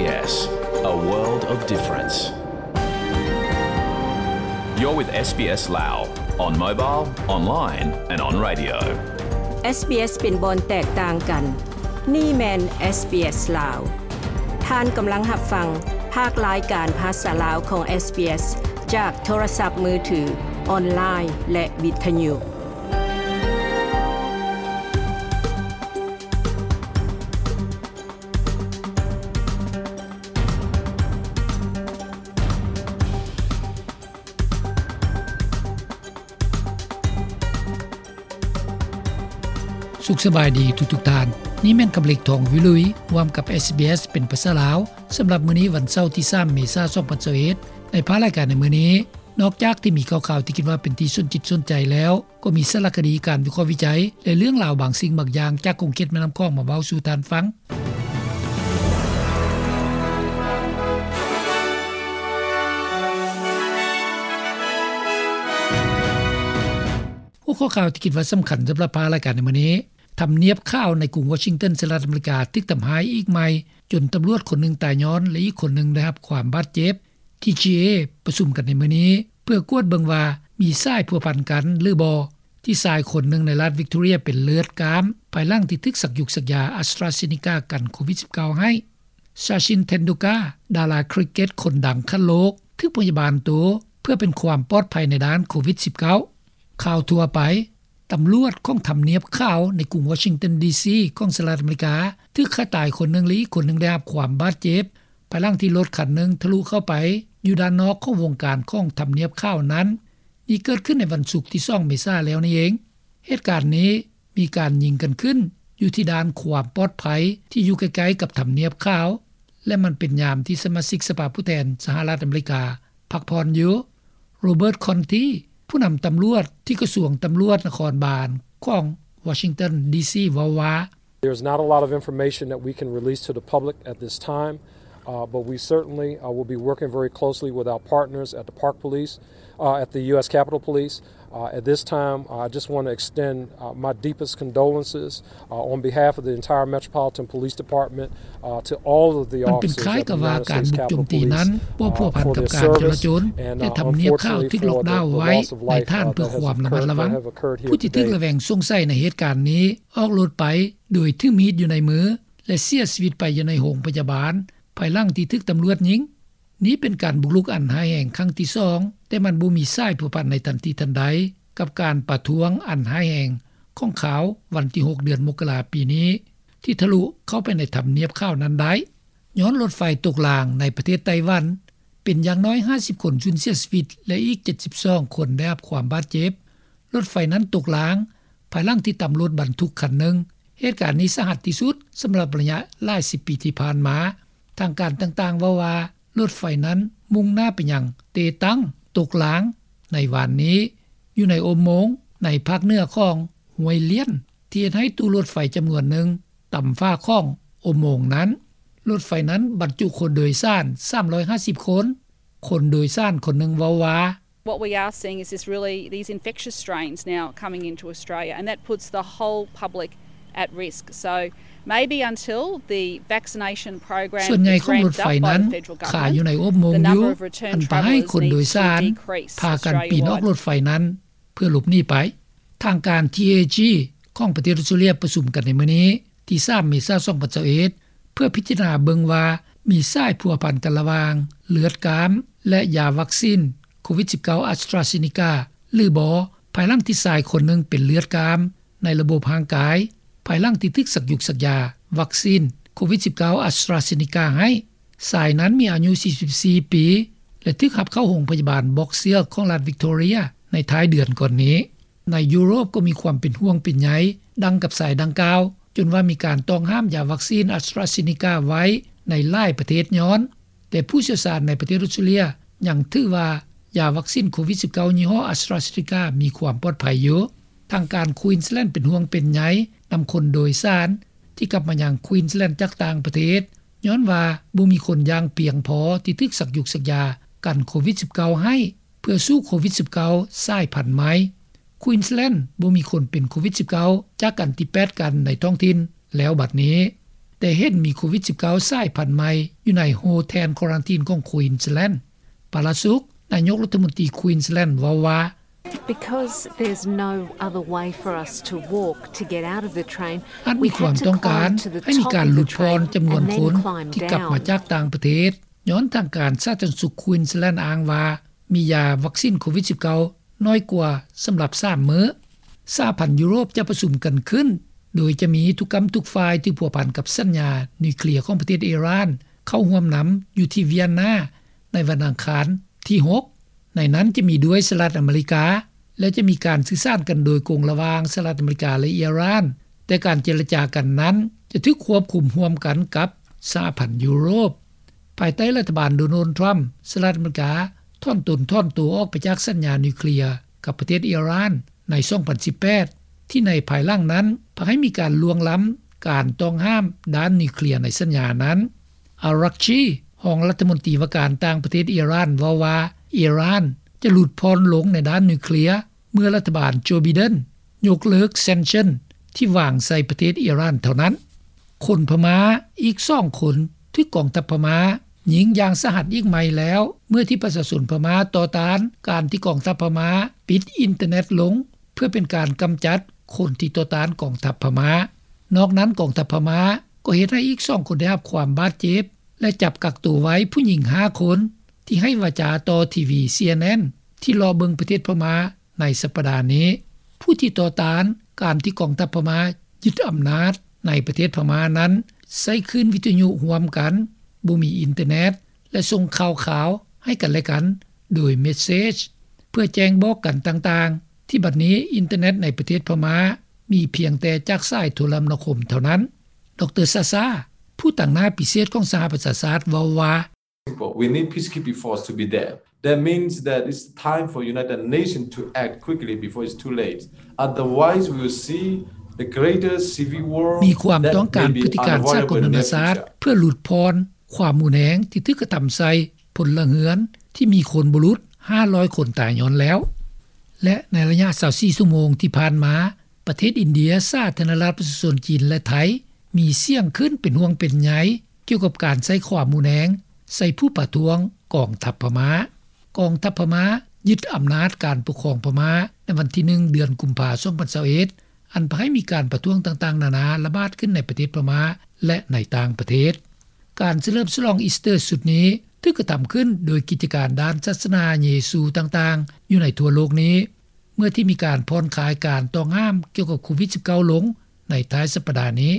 SBS, a world of difference. You're with SBS Lao on mobile, online and on radio. SBS ເປັນບ່ອນແຕກຕ່າງກັນ. ນີ້ແມ່ນ SBS ລາວ. ທ່ານກຳລັງຮັບຟັງພາກລາຍການພາສາລາວຂອງ SBS ຈາກໂທລະສັບມືຖື, ອອນລາຍ ແລະ ວິທະຍຸ. ສຸກສະບາຍດີທຸກໆທ່ານ. ນີ້ແມ່ນຄຳເລັກ ທອງວິລຸຍ ຮ່ວມກັບ SBS ເປັນພາສາລາວ ສຳລັບມື້ນີ້ ວັນເສົາ ທີສາມ ເມສາ ສອງພັນຊາວເອັດ. ໃນພາກລາຍການໃນມື້ນີ້, ນອກຈາກທີ່ມີຂ່າວໆທີ່ຄິດວ່າເປັນທີ່ສົນຈິດສົນໃຈແລ້ວ, ກໍມີສາລະຄະດີ, ການວິເຄາະວິໄຈ ແລະ ເລື່ອງລາວບາງສິ່ງບາງຢ່າງຈາກຂົງເຂດແມ່ນ້ຳຂອງມາເວົ້າສູ່ທ່ານຟັງ. ຫົວຂໍ້ຂ່າວທີ່ຄິດວ່າສຳຄັນສຳລັບພາກລາຍການໃນມື້ນີ້, ທຳນຽບຂາວໃນກຸງວໍຊິງຕັນ ສະຫະລັດອາເມລິກາ ຖືກທຳຮ້າຍອີກໃໝ່ ຈົນຕຳຫຼວດຄົນໜຶ່ງຕາຍຍ້ອນ ແລະ ອີກຄົນໜຶ່ງໄດ້ຮັບຄວາມບາດເຈັບ. ທີຈີເອ ປະຊຸມກັນໃນມື້ນີ້ ເພື່ອກວດເບິ່ງວ່າມີສາຍພົວພັນກັນຫຼືບໍ່ ທີ່ຊາຍຄົນໜຶ່ງໃນລັດວິກຕໍເຣຍເປັນເລືອດກ້າມ ພາຍຫຼັງທີ່ຖືກສັກຢູກສັກຢາ AstraZeneca ກັນໂຄວິດສິບເກົ້າໃຫ້. ຊາຊິນ ເທັນດູກາ ດາລາຄຣິກເກັດຄົນດັງຂັ້ນໂລກ ຖືກພະຍາບານໂຕເພື່ອເປັນຄວາມປອດໄພໃນດ້ານໂຄວິດສິບເກົ້າ. ຂ່າວທົ່ວໄປ, ຕຳຫຼວດຂອງທຳນຽບຂາວໃນກຸງວໍຊິງຕັນ ດີຊີ ຂອງສະຫະລັດອາເມລິກາ ຖືກຂ້າຕາຍຄົນໜຶ່ງ ແລະ ອີກຄົນໜຶ່ງໄດ້ຮັບຄວາມບາດເຈັບ ພາຍຫຼັງທີ່ລົດຄັນໜຶ່ງທະລຸເຂົ້າໄປຢູ່ດ້ານນອກຂອງວົງການຂອງທຳນຽບຂາວນັ້ນ. ນີ້ເກີດຂຶ້ນໃນວັນສຸກທີສອງ ເມສາແລ້ວນີ້ເອງ. ເຫດການນີ້ມີການຍິງກັນຂຶ້ນຢູ່ທີ່ດ່ານຄວາມປອດໄພທີ່ຢູ່ໃກ້ໆກັບທຳນຽບຂາວ ແລະ ມັນເປັນຍາມທີ່ສະມາຊິກສະພາຜູ້ແທນສະຫະລັດອາເມລິກາພັກຜ່ອນຢູ່. ໂຣເບີດ ຄອນທີ ຜູ້ນຳຕຳຫຼວດທີ່ກະຊວງຕຳຫຼວດນະຄອນບານຂອງວໍຊິງຕັນ ດີຊີ ເວົ້າວ່າ, There's not a lot of information that we can release to the public at this time, uh, but we certainly, uh, will be working very closely with our partners at the Park Police, uh, at the U S Capitol Police. Uh, at this time, I just want to extend, uh, my deepest condolences, uh, on behalf of the entire Metropolitan Police Department, uh, to all of the officers of the United States Capitol Police, uh, for their service and, uh, unfortunately for the, the loss of life, uh, that has occurred, that have occurred here today. ຜູ້ທີ່ຖືກລະແວງສົງໄສໃນເຫດການນີ້ ອອກລົດໄປໂດຍຖືມີດຢູ່ໃນມື ແລະ ເສຍຊີວິດໄປຢູ່ໃນໂຮງພະຍາບານ ພາຍຫຼັງທີ່ຖືກຕຳຫຼວດຍິງ. ນີ້ເປັນການບຸກລຸກອັນຮ້າຍແຮງຄັ້ງທີສອງ, ແຕ່ມັນບໍ່ມີສາຍພົວພັນໃນທັນທີທັນໃດກັບການປະທ້ວງອັນຮ້າຍແຮງຂອງຂ່າວວັນທີຫົກ ເດືອນມົກກະລາປີນີ້ ທີ່ທະລຸເຂົ້າໄປໃນທຳນຽບຂາວນັ້ນໄດ້. ຍ້ອນລົດໄຟຕົກລາງໃນປະເທດໄຕ້ຫວັນ, ເປັນຢ່າງໜ້ອຍຫ້າສິບຄົນສູນເສຍຊີວິດ ແລະ ອີກເຈັດສິບສອງຄົນໄດ້ຮັບຄວາມບາດເຈັບ. ລົດໄຟນັ້ນຕົກລາງ ພາຍຫຼັງທີ່ຕຳລົດບັນທຸກຄັນໜຶ່ງ. ເຫດການນີ້ສາຫັດທີ່ສຸດສຳລັບໄລຍະຫຼາຍສິບປີທີ່ຜ່ານມາ. ທາງການຕ່າງໆເວົ້າວ່າ ລົດໄຟນັ້ນມຸ່ງໜ້າໄປຍັງເຕຕັງ, ຕົກລາງໃນວານນີ້ ຢູ່ໃນອຸໂມງໃນພາກເໜືອຂອງຫ້ວຍລຽນ ທີ່ເຮັດໃຫ້ຕູ້ລົດໄຟຈຳນວນໜຶ່ງຕຳຝາຂອງອຸໂມງນັ້ນ. ລົດໄຟນັ້ນບັນຈຸຄົນໂດຍສານສາມຮ້ອຍຫ້າສິບຄົນ. ຄົນໂດຍສານຄົນໜຶ່ງເວົ້າວ່າ, What we are seeing is this really, these infectious strains now coming into Australia, and that puts the whole public at risk. So maybe until the vaccination program is ramped up by the federal government, the number of return travellers needs to decrease. ສ່ວນໃຫຍ່ຂອງລົດໄຟນັ້ນ ຂາຢູ່ໃນອົບໂມງຢູ່, ອັນພາໃຫ້ຄົນໂດຍສານພາກັນປີນອອກລົດໄຟນັ້ນເພື່ອຫຼົບໜີໄປ. ທາງການ ທີເອຈີ ຂອງປະເທດອອສເຕຣເລັຽປະຊຸມກັນໃນມື້ນີ້ ທີສາມ ເມສາ ສອງພັນຊາວເອັດ ເພື່ອພິຈາລະນາເບິ່ງວ່າມີສາຍພົວພັນກັນລະຫວ່າງເລືອດກ້າມ ແລະ ຢາວັກຊີນໂຄວິດສິບເກົ້າ AstraZeneca ຫຼືບໍ່, ພາຍຫຼັງທີ່ຊາຍຄົນໜຶ່ງເປັນເລືອດກ້າມໃນລະບົບຮ່າງກາຍ ພາຍຫຼັງທີ່ຖືກສັກຢູກສັກຢາວັກຊີນໂຄວິດສິບເກົ້າ AstraZeneca ໃຫ້. ຊາຍນັ້ນມີອາຍຸສີ່ສິບສີ່ປີ ແລະ ຖືກຮັບເຂົ້າໂຮງພະຍາບານບອກເຊືອກຂອງລັດວິກຕໍເຣຍໃນທ້າຍເດືອນກ່ອນນີ້. ໃນຢູໂຣບກໍມີຄວາມເປັນຫ່ວງເປັນໃຍດັ່ງກັບຊາຍດັ່ງກ່າວ, ຈົນວ່າມີການຕ້ອງຫ້າມຢາວັກຊີນ AstraZeneca ໄວ້ໃນຫຼາຍປະເທດຍ້ອນ, ແຕ່ຜູ້ຊ່ຽວຊານໃນປະເທດອອສເຕຣເລັຽຍັງຖືວ່າຢາວັກຊີນໂຄວິດສິບເກົ້າຍີ່ຫໍ້ AstraZeneca ມີຄວາມປອດໄພຢູ່. ທາງການ Queensland ເປັນຫ່ວງເປັນໃຍນຳຄົນໂດຍສານທີ່ກັບມາຍັງ Queensland ຈາກຕ່າງປະເທດ, ຍ້ອນວ່າບໍ່ມີຄົນຢ່າງພຽງພໍທີ່ຖືກສັກຢູກສັກຢາກັນໂຄວິດສິບເກົ້າໃຫ້ ເພື່ອສູ້ໂຄວິດສິບເກົ້າສາຍພັນໃໝ່. Queensland ບໍ່ມີຄົນເປັນໂຄວິດສິບເກົ້າຈາກອັນທີແປດກັນໃນທ້ອງຖິ່ນແລ້ວບັດນີ້. ແຕ່ເຫັນມີໂຄວິດ-19 ສາຍພັນໃໝ່ຢູ່ໃນໂຮເທນຄວາຣັນທີນຂອງ Queensland. ປາລາສຸກ ນາຍົກລັດຖະມົນຕີ Queensland ເວົ້າວ່າ: "ອາດມີຄວາມຕ້ອງການໃຫ້ມີການຫຼຸດຜ່ອນຈຳນວນຄົນທີ່ກັບມາຈາກຕ່າງປະເທດ ຍ້ອນທາງການສາທາລະນະສຸກ Queensland ອ້າງວ່າ ມີຢາວັກຊິນໂຄວິດ-19 ໜ້ອຍກວ່າສຳລັບສາມມື້." ສະຫະພັນຢູໂຣບຈະປະຊຸມກັນຂຶ້ນ ໂດຍຈະມີທຸກກ້ຳທຸກຝ່າຍທີ່ພົວພັນກັບສັນຍານິວເຄລຍຂອງປະເທດອີຣານ ເຂົ້າຮ່ວມນຳຢູ່ທີ່ວຽນນາ ໃນວັນອັງຄານທີຫົກ ໃນນັ້ນຈະມີດ້ວຍສະຫະລັດອາເມລິກາ ແລະ ຈະມີການສື່ສານກັນໂດຍກົງລະຫວ່າງສະຫະລັດອາເມລິກາ ແລະ ອີຣານ, ແຕ່ການເຈລະຈາກັນນັ້ນຈະຖືກຄວບຄຸມຮ່ວມກັນກັບສະຫະພັນຢູໂຣບ. ພາຍໃຕ້ລັດຖະບານໂດນັລ ທຣຳ ສະຫະລັດອາເມລິກາຖອນຕົນຖອນໂຕອອກໄປຈາກສັນຍານິວເຄລຍກັບປະເທດອີຣານໃນສອງພັນສິບແປດ ທີ່ໃນພາຍຫຼັງນັ້ນ ພາໃຫ້ມີການລ່ວງລ້ຳການຕ້ອງຫ້າມດ້ານນິວເຄລຍໃນສັນຍານັ້ນ. ອາຣັກຊີ ຮອງລັດຖະມົນຕີວ່າການຕ່າງປະເທດອີຣານ ເວົ້າວ່າ ອີຣານຈະຫຼຸດຜ່ອນລົງໃນດ້ານນິວເຄລຍ ເມື່ອລັດຖະບານໂຈ ໄບເດັນ ຍົກເລີກ sanction ທີ່ວາງໃສ່ປະເທດອີຣານເທົ່ານັ້ນ. ຄົນພະມ້າອີກສອງຄົນຖືກກອງທັບພະມ້າຍິງຢ່າງສາຫັດອີກໃໝ່ແລ້ວ ເມື່ອທີ່ປະຊາຊົນພະມ້າຕໍ່ຕ້ານການທີ່ກອງທັບພະມ້າປິດອິນເຕີເນັດລົງ ເພື່ອເປັນການກຳຈັດຄົນທີ່ຕໍ່ຕ້ານກອງທັບພະມ້າ. ນອກນັ້ນ ກອງທັບພະມ້າກໍເຮັດໃຫ້ອີກສອງຄົນໄດ້ຮັບຄວາມບາດເຈັບ ແລະ ຈັບກັກໂຕໄວ້ຜູ້ຍິງຫ້າຄົນ ທີ່ໃຫ້ວາຈາຕໍ່ທີວີ CNN ທີ່ເລາະເບິ່ງປະເທດພະມ້າໃນສັບປະດານີ້. ຜູ້ທີ່ຕໍ່ຕ້ານການທີ່ກອງທັບພະມ້າຍຶດອຳນາດໃນປະເທດພະມ້ານັ້ນ ໃຊ້ຄື້ນວິທະຍຸຮ່ວມກັນ, ບໍ່ມີອິນເຕີເນັດ ແລະ ສົ່ງຂ່າວຄາວໃຫ້ກັນແລະກັນໂດຍເມັດເສຈ ເພື່ອແຈ້ງບອກກັນຕ່າງໆ ທີ່ບັດນີ້ອິນເຕີເນັດໃນປະເທດພະມ້າມີພຽງແຕ່ຈາກສາຍໂທລະມະນາຄົມເທົ່ານັ້ນ. ດຣ ຊາຊາ ຜູ້ຕາງໜ້າພິເສດຂອງສະຫະປະຊາຊາດ ເວົ້າວ່າ: "ມີຄວາມຕ້ອງການພຶດຕິການສາກົນນານາຊາດ ເພື່ອຫຼຸດຜ່ອນຄວາມຮຸນແຮງທີ່ຖືກກະທຳໃສ່ພົນລະເຮືອນ ທີ່ມີຄົນບໍ່ຫຼຸດຫ້າຮ້ອຍຄົນຕາຍຍ້ອນແລ້ວ." ແລະ ໃນໄລຍະຊາວສີ່ຊົ່ວໂມງທີ່ຜ່ານມາ ປະເທດອິນເດຍ, ສາທາລະນະລັດປະຊາຊົນຈີນ ແລະ ໄທ ມີສຽງຂຶ້ນເປັນຫ່ວງເປັນໃຍ ກ່ຽວກັບການໃຊ້ຄວາມຮຸນແຮງໃສ່ຜູ້ປະທ້ວງກອງທັບພະມ້າ. ກອງທັບພະມ້າຍຶດອຳນາດການປົກຄອງພະມ້າໃນວັນທີໜຶ່ງ ເດືອນກຸມພາ ສອງພັນຊາວເອັດ ອັນພາໃຫ້ມີການປະທ້ວງຕ່າງໆນານາລະບາດຂຶ້ນໃນປະເທດພະມ້າ ແລະ ໃນຕ່າງປະເທດ. ການສະເຫຼີມສະຫຼອງອີສເຕີຊຸດນີ້ຖືກກະທຳຂຶ້ນໂດຍກິດຈະການດ້ານສາສະໜາເຢຊູຕ່າງໆຢູ່ໃນທົ່ວໂລກນີ້ ເມື່ອທີ່ມີການຜ່ອນຄາຍການຕ້ອງຫ້າມກ່ຽວກັບໂຄວິດ-19 ລົງໃນທ້າຍສັບປະດານີ້.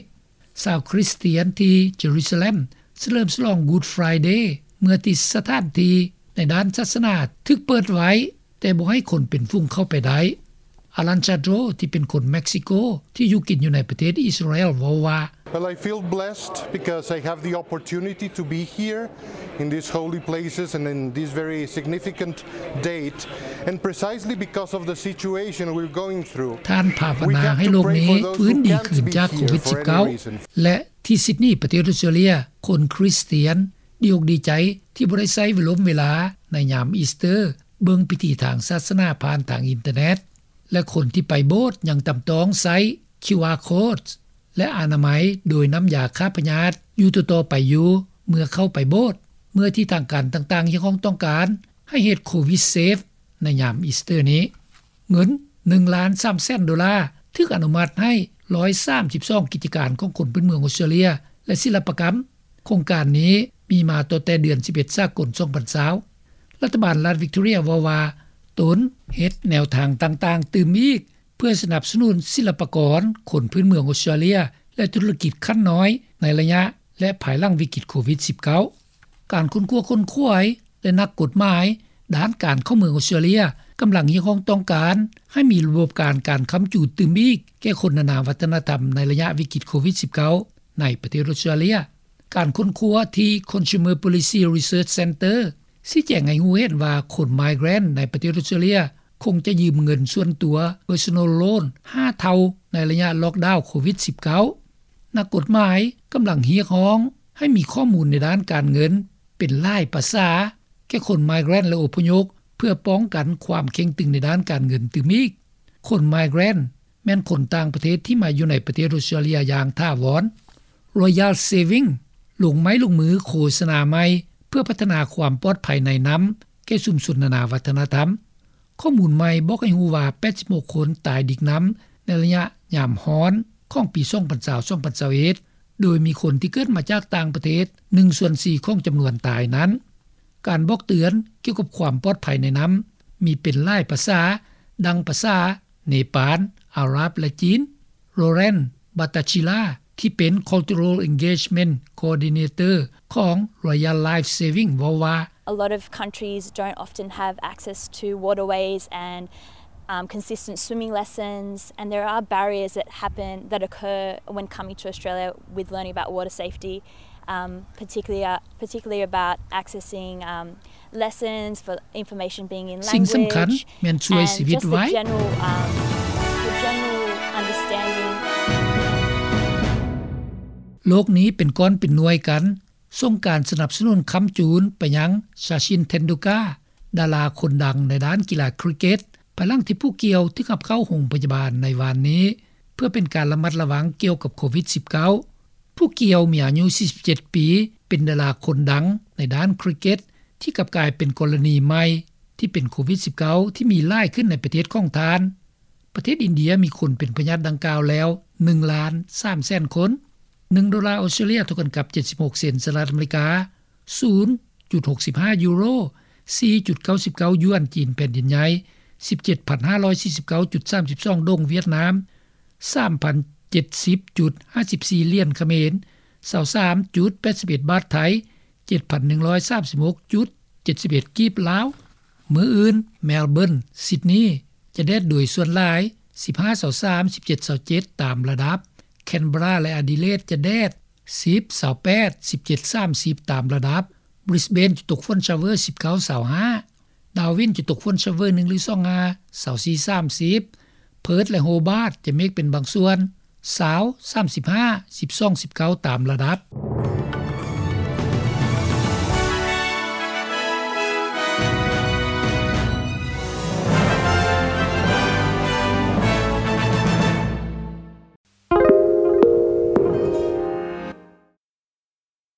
ຊາວຄຣິສຕຽນທີ່ເຢຣູຊາເລັມສະເຫຼີມສະຫຼອງ Good Friday ເມື່ອທີ່ສະຖານທີ່ໃນດ້ານສາສະໜາຖືກເປີດໄວ້ ແຕ່ບໍ່ໃຫ້ຄົນເປັນຝູງເຂົ້າໄປໄດ້. ອາລັນ ຊາໂດຣ ທີ່ເປັນຄົນເມັກຊິໂກ ທີ່ຢູ່ກິນຢູ່ໃນປະເທດອິດສະຣາແອລ ເວົ້າວ່າ: "Well, I feel blessed because I have the opportunity to be here in these holy places and in this very significant date, and precisely because of the situation we're going through." ທ່ານພາວະນາໃຫ້ໂລກນີ້ຟື້ນດີຄືນຈາກໂຄວິດ-19 ແລະ ທີ່ຊິດນີ ປະເທດອົດສະຕຣາເລຍ ຄົນຄຣິສຕຽນດີອົກດີໃຈທີ່ບໍ່ໄດ້ໃຊ້ເວລົມເວລາໃນຍາມອີສເຕີ ເບິ່ງພິທີທາງສາສະໜາຜ່ານທາງອິນເຕີເນັດ ແລະ ຄົນທີ່ໄປໂບດຍັງຈຳຕ້ອງໃຊ້ ຄິວອາ ໂຄດ ແລະ ອະນາໄມໂດຍນ້ຳຢາຂ້າພະຍາດຢູ່ຕໍ່ໆໄປຢູ່ເມື່ອເຂົ້າໄປໂບດ ເມື່ອທີ່ທາງການຕ່າງໆຮຽກຮ້ອງຕ້ອງການໃຫ້ເຮັດ ໂຄວິດ ເຊຟ ໃນຍາມອີສເຕີນີ້. ເງິນໜຶ່ງລ້ານສາມແສນໂດລາ ຖືກອະນຸມັດໃຫ້ຮ້ອຍສາມສິບສອງກິດຈະການຂອງຄົນພື້ນເມືອງອົດສະຕຣາເລຍ ແລະ ສິລະປະກຳ. ໂຄງການນີ້ມີມາຕັ້ງແຕ່ເດືອນສິບເອັດ ສາກົນ ສອງພັນຊາວ. ລັດຖະບານລັດວິກຕໍເຣຍເວົ້າວ່າ ຕົນເຮັດແນວທາງຕ່າງໆຕື່ມອີກ ເພື່ອສະໜັບສະໜູນສິລະປະກອນຄົນພື້ນເມືອງອົດສະຕຣາເລຍ ແລະ ທຸລະກິດຂັ້ນນ້ອຍໃນໄລຍະ ແລະ ພາຍຫຼັງວິກິດໂຄວິດ-19. ການຄົ້ນຄວ້າຂົນຂວາຍ ແລະ ນັກກົດໝາຍດ້ານການເຂົ້າເມືອງອົດສະຕຣາເລຍ ກຳລັງຮຽກຮ້ອງຕ້ອງການໃຫ້ມີລະບົບການ ການຄ້ຳຈູດຕື່ມອີກແກ່ຄົນນານາວັດທະນະທຳໃນໄລຍະວິກິດໂຄວິດ-19 ໃນປະເທດອົດສະຕຣາເລຍ. ການຄົ້ນຄວ້າທີ່ Consumer Policy Research Centre ຊີ້ແຈງໃຫ້ຮູ້ເຫັນວ່າ ຄົນ migrant ໃນປະເທດອົດສະຕຣາເລຍ ຄົງຈະຢືມເງິນສ່ວນຕົວ Personal Loan ຫ້າເທົ່າໃນໄລຍະລ໊ອກດາວໂຄວິດ-19. ນັກກົດໝາຍກຳລັງຮຽກຮ້ອງໃຫ້ມີຂໍ້ມູນໃນດ້ານການເງິນເປັນຫຼາຍພາສາແກ່ຄົນ migrant ແລະ ອົບພະຍົບ ເພື່ອປ້ອງກັນຄວາມເຄັ່ງຕຶງໃນດ້ານການເງິນຕື່ມອີກ. ຄົນ migrant ແມ່ນຄົນຕ່າງປະເທດທີ່ມາຢູ່ໃນປະເທດອົດສະຕຣາເລຍຢ່າງຖາວອນ. Royal Saving ລົງໄມ້ລົງມືໂຄສະນາໃໝ່ ເພື່ອພັດທະນາຄວາມປອດໄພໃນນໍ້າ ແກ່ຊຸມຊົນນານາວັດທະນະທຳ. ຂໍ້ມູນໃໝ່ບອກໃຫ້ຮູ້ວ່າ ແປດສິບຫົກຄົນຕາຍດິກນໍ້າ ໃນໄລຍະຍາມຮ້ອນ ຂອງປີສອງພັນຊາວ ສອງພັນຊາວເອັດ ໂດຍມີຄົນທີ່ເກີດມາຈາກຕ່າງປະເທດ ໜຶ່ງສ່ວນສີ່ຂອງຈຳນວນຕາຍນັ້ນ. ການບອກເຕືອນກ່ຽວກັບຄວາມປອດໄພໃນນໍ້າ ມີເປັນຫຼາຍພາສາ ດັ່ງພາສາເນປານ, ອາຣັບ ແລະ ຈີນ. Lauren Bhattacharya ທີ່ເປັນ Cultural Engagement Coordinator ຂອງ Royal Life Saving ເວົ້າວ່າ: A lot of countries don't often have access to waterways and, um, consistent swimming lessons, and there are barriers that happen, that occur when coming to Australia with learning about water safety, um, particularly, uh, particularly about accessing, um, lessons, for information being in language, ສິ່ງສຳຄັນແມ່ນຊ່ວຍຊີວິດໄວ້. And just the general, um, the general understanding. ໂລກນີ້ເປັນກ້ອນເປັນໜ່ວຍກັນ. ສົ່ງການສະໜັບສະໜູນຄ້ຳຈູນໄປຍັງ Sachin Tendulkar ດາລາຄົນດັງໃນດ້ານກິລາຄຣິກເກັດ ພາຍຫຼັງທີ່ຜູ້ກ່ຽວຖືກຮັບເຂົ້າໂຮງພະຍາບານໃນວານນີ້ ເພື່ອເປັນການລະມັດລະວັງກ່ຽວກັບໂຄວິດສິບເກົ້າ. ຜູ້ກ່ຽວມີອາຍຸສີ່ສິບເຈັດປີ ເປັນດາລາຄົນດັງໃນດ້ານຄຣິກເກັດ ທີ່ກັບກາຍເປັນກໍລະນີໃໝ່ທີ່ເປັນໂຄວິດສິບເກົ້າ ທີ່ມີຫຼາຍຂຶ້ນໃນປະເທດຂອງທ່ານ. ປະເທດອິນເດຍມີຄົນເປັນພະຍາດດັ່ງກ່າວແລ້ວ ໜຶ່ງລ້ານສາມແສນຄົນ. ໜຶ່ງໂດລາອອສເຕຣເລຍເທົ່າກັນກັບເຈັດສິບຫົກເຊັນສະຫະລັດອາເມລິກາ, ສູນຈຸດຫົກສິບຫ້າຢູໂຣ, ສີ່ຈຸດເກົ້າສິບເກົ້າຢວນຈີນແຜ່ນດິນໃຫຍ່, ສິບເຈັດພັນຫ້າຮ້ອຍສີ່ສິບເກົ້າຈຸດສາມສິບສອງດົງຫວຽດນາມ, ສາມພັນເຈັດສິບຈຸດຫ້າສິບສີ່ຫຼຽນຂະເໝນ, ຊາວສາມຈຸດແປດສິບເອັດບາດໄທ, ເຈັດພັນໜຶ່ງຮ້ອຍສາມສິບຫົກຈຸດເຈັດສິບເອັດກີບລາວ. ມື້ອື່ນ Melbourne, Sydney ຈະແດດໂດຍສ່ວນຫຼາຍ ສິບຫ້າ ຊາວສາມ ສິບເຈັດ ຊາວເຈັດ ຕາມລະດັບ. Canberra ແລະ Adelaide ຈະແດດ ສິບ ຊາວແປດ ສິບເຈັດ ສາມສິບ ຕາມລະດັບ. Brisbane ຈະຕົກຝົນ shower ສິບເກົ້າ ຊາວຫ້າ. Darwin ຈະຕົກຝົນ shower ໜຶ່ງ ຫຼື ສອງ ຫາ ຊາວສີ່ ສາມສິບ. Perth ແລະ Hobart ຈະເມກເປັນບາງສ່ວນ ຊາວ ສາມສິບຫ້າ ສິບສອງ ສິບເກົ້າ ຕາມລະດັບ.